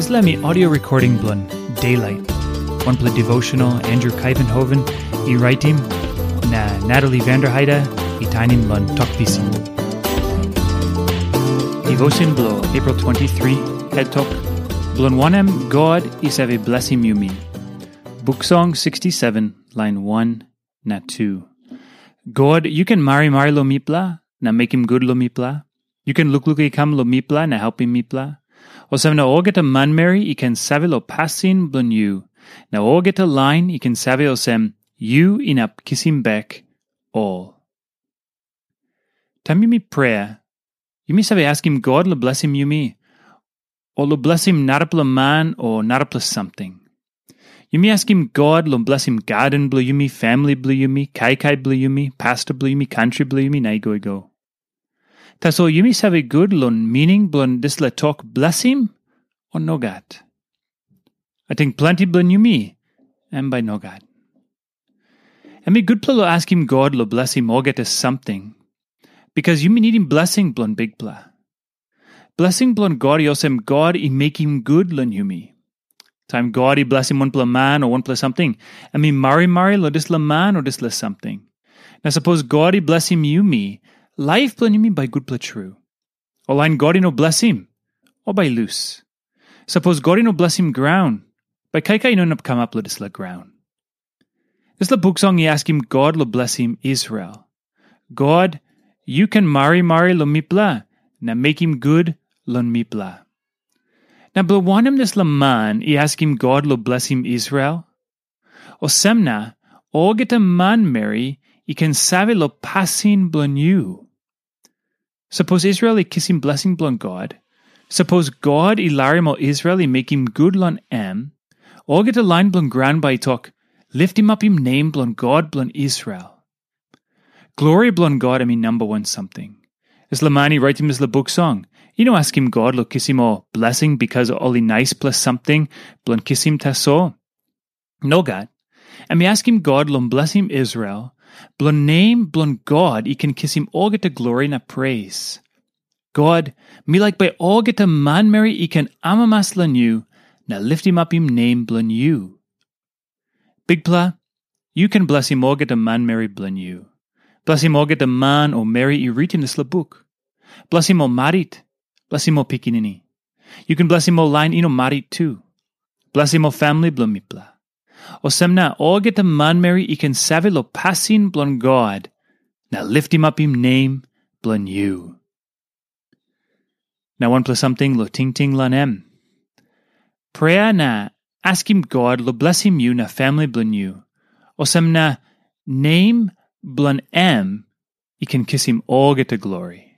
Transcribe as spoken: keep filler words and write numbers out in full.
Dispela mi audio recording bilong Daylight. Wanpela devotional Andrew Kaivenhoven i raitim, na Natalie Vanderheide i tainim long Tok Pisin. Devotion bilong April twenty-three, head tok, bilong wanem God i save blesim yumi. Buk Song sixty-seven, line one na two. God, yu ken marimari long mipela, na mekim gut long mipela. Yu ken lukluk i kam long mipela, na helpim mipela. Olsem na olgeta manmeri i ken save long pasin bilong yu, na olgeta lain i ken save olsem, yu inap kisim bek ol. Taim yumi prea, yumi save askim God long blesim yumi, o long blesim narapela man o narapela samting. Yumi askim God long blesim gaden bilong yumi, famili bilong yumi, kaikai bilong yumi, pasta bilong yumi, kantri bilong yumi, na i go i go. Tasol yumi save gut long mining bilong dispela tok blesim, o nogat? Ating planti bilong yumi, em bai nogat. Em i gutpela long askim God long blesim olgeta samting, bikas yumi nidim blesing bilong Bikpela. Blesing bilong God i olsem God i mekim gut long yumi. Taim God i blesim wanpela man o wanpela samting, em i marimari long dispela man o dispela samting. Na sapos God i blesim yumi, laip bilong yumi bai gutpela tru. Ol lain God i no blesim, ol bai lus. Sapos God i no blesim graun, bai kaikai i no inap kamap long dispela graun. Dispela buk song i askim God long blesim Israel. God, yu ken marimari long mipela, na mekim gut long mipela. Na bilong wanem dispela man i askim God long blesim Israel? Olsem na, olgeta manmeri i ken save long pasin bilong yu. Sapos Israel i kisim blesing bilong God, sapos God i larim ol Israel i mekim gut long em, olgeta lain bilong graun bai i tok, "Liftim apim nem bilong God bilong Israel." Glori bilong God em i namba wan samting. Dispela man i raitim dispela buk song, i no askim God long kisim ol blesing bikas ol i naispela samting bilong kisim tasol. Nogat. Em i askim God long blesim Israel, bilong nem bilong God i ken kisim olgeta glori na pres. God, mi laik bai olgeta manmeri i ken amamas long yu na liftim apim nem bilong yu. Bikpela, yu ken blesim olgeta manmeri bilong yu. Blesim olgeta man o meri i ritim dispela buk. Blesim ol marit, blesim ol pikinini. Yu ken blesim ol lain i no marit tu. Blesim ol famili bilong mipela. Olsem na olgeta manmeri i ken save long pasin bilong God, na liftim apim nem bilong yu. Na wanpela samting long tingting long em. Prea na askim God long blesim yu na famili bilong yu. Olsem na nem bilong em i ken kisim olgeta glori.